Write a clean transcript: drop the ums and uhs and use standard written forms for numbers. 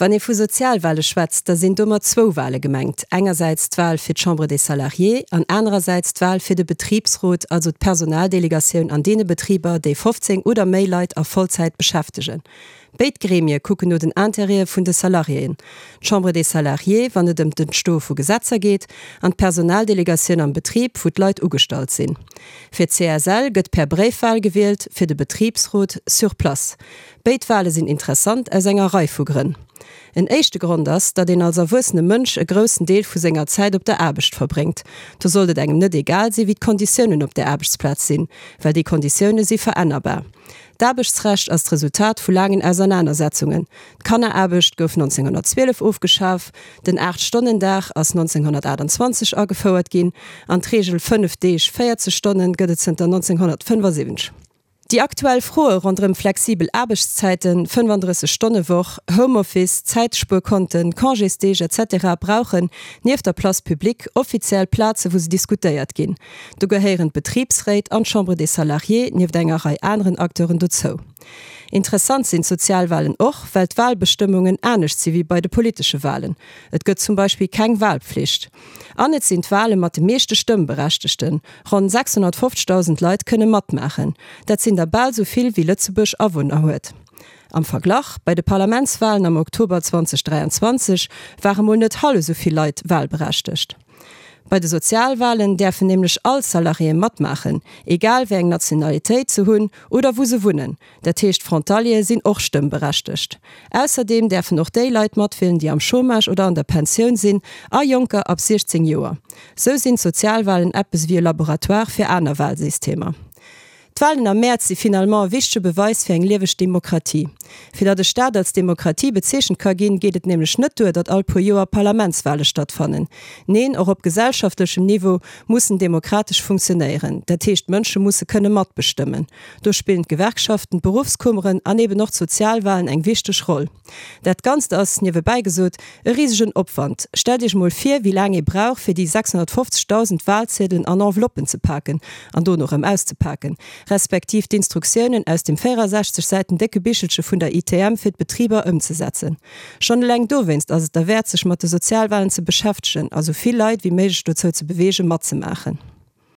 Wann ee vu Sozialwale schwätzt, da sinn domat zwou Wale gemengt, engersäits d'Wal fir d'Chambre des Salariés an anerersäits d'Wal fir de Betribsrot, also d'Personaldelegatioun an deene Betriber, déi 15 oder méi Leit a Vollzäit beschäftegen. Béid Gremie kucken no den Intérêtë vun de Salariéen, d'Chambre des Salariés, wann et ëm d'Entstoe vu Gesetzer geet, an d'Personaldelegatioun am Betrib, wou d'Leit ugestallt sinn. Fir d'CSL gëtt per Bréifwal gewielt, fir de Betribsrot sur place. Béid Wale sinn interessant aus enger Rei vu Grënn. En éischte Grond ass, datt een als erwuessene Mënsch e groussen Deel vu senger Zäit op der Aarbecht verbréngt. Do sollt et engem net egal si wéi d'Konditiounen op där Aarbechtsplaz sinn, well déi Konditioune si verännerbar. D'Aarbechtsrecht ass d'Resultat vu laangen Ausernanersetzungen. D'Kanneraarbecht gouf 1912 ofgeschaf, den Aacht-Stonnen-Dag ass 1928 agefouert ginn an d'Reegel 5 Deeg, 40 Stonnen gëtt et zënter 1975. Déi aktuell Froe ronderëm flexibel Aarbechtszäiten, 35 Stonne Woch, Homeoffice, Zäitspuerkonten, Congésdeeg etc. Brauchen, nieft der Place publique, offiziell Plaze wou se diskutéiert ginn. Do gehéieren d'Betribsréit an d'Chambre des Salariés nieft enger Rei aneren Acteuren dozou. Interessant sinn d'Sozialwalen och, well d'Walbestëmmungen anescht si wéi bei de politesche Walen. Et gëtt zum Beispill keng Walpflicht. An et sinn d'Wale mat de meeschte Stëmmberechtegten, Ronn 650.000 Leit kënne matmaachen. Dat sinn der bal sou vill wéi Lëtzebuerg Awunner huet. Am Verglach, bei de Parlamentswalen am Oktober 2023 ware mol net hallef sou vill Leit walberechtegt. Bei de Sozialwalen däerfen nämlech all Salariéë matmaachen, egal wéi eng Nationalitéit se hunn oder wou se wunnen. Dat heescht Frontaliere sinn och stëmmberechtegt. Ausserdeem däerfen och déi Leit matwielen, déi am Chômage oder an der Pensioun sinn a Jonker ab 16 Joer. Sou sinn d'Sozialwalen eppes ewéi e Laboratoire fir aner Walsystemer. D'Walen am Mäerz si finalement e wichtege Beweis fir eng lieweg Demokratie. Fir datt e Staat als Demokratie bezeechent ka ginn, geet et nämlech net duer, datt all puer Joer Parlamentswale stattfannen. Neen, och op gesellschaftlechem Niveau muss en demokratesch funktionéieren. Dat heescht, d'Mënsche musse kënne matbestëmmen. Do spillen d'Gewerkschaften, d'Beruffskummeren an eben och d'Sozialwalen eng wichteg Roll. Dat Ganzt ass, niewebäi gesot, e risegen Opwand. Stellt Iech mol vir, wéi laang ee brauch, fir déi 650.000 Walziedelen an Enveloppen ze paken an dono erëm auszepaken, respektiv d'Instruktiounen aus dem 64 Säiten décke Bichelche vun der ITM fir d'Betriber ëmzesetzen. Schonn eleng dowéinst ass et derwäert, sech mat de Sozialwalen ze beschäftegen a sou vill Leit wéi méiglech dozou ze beweegen, matzemaachen.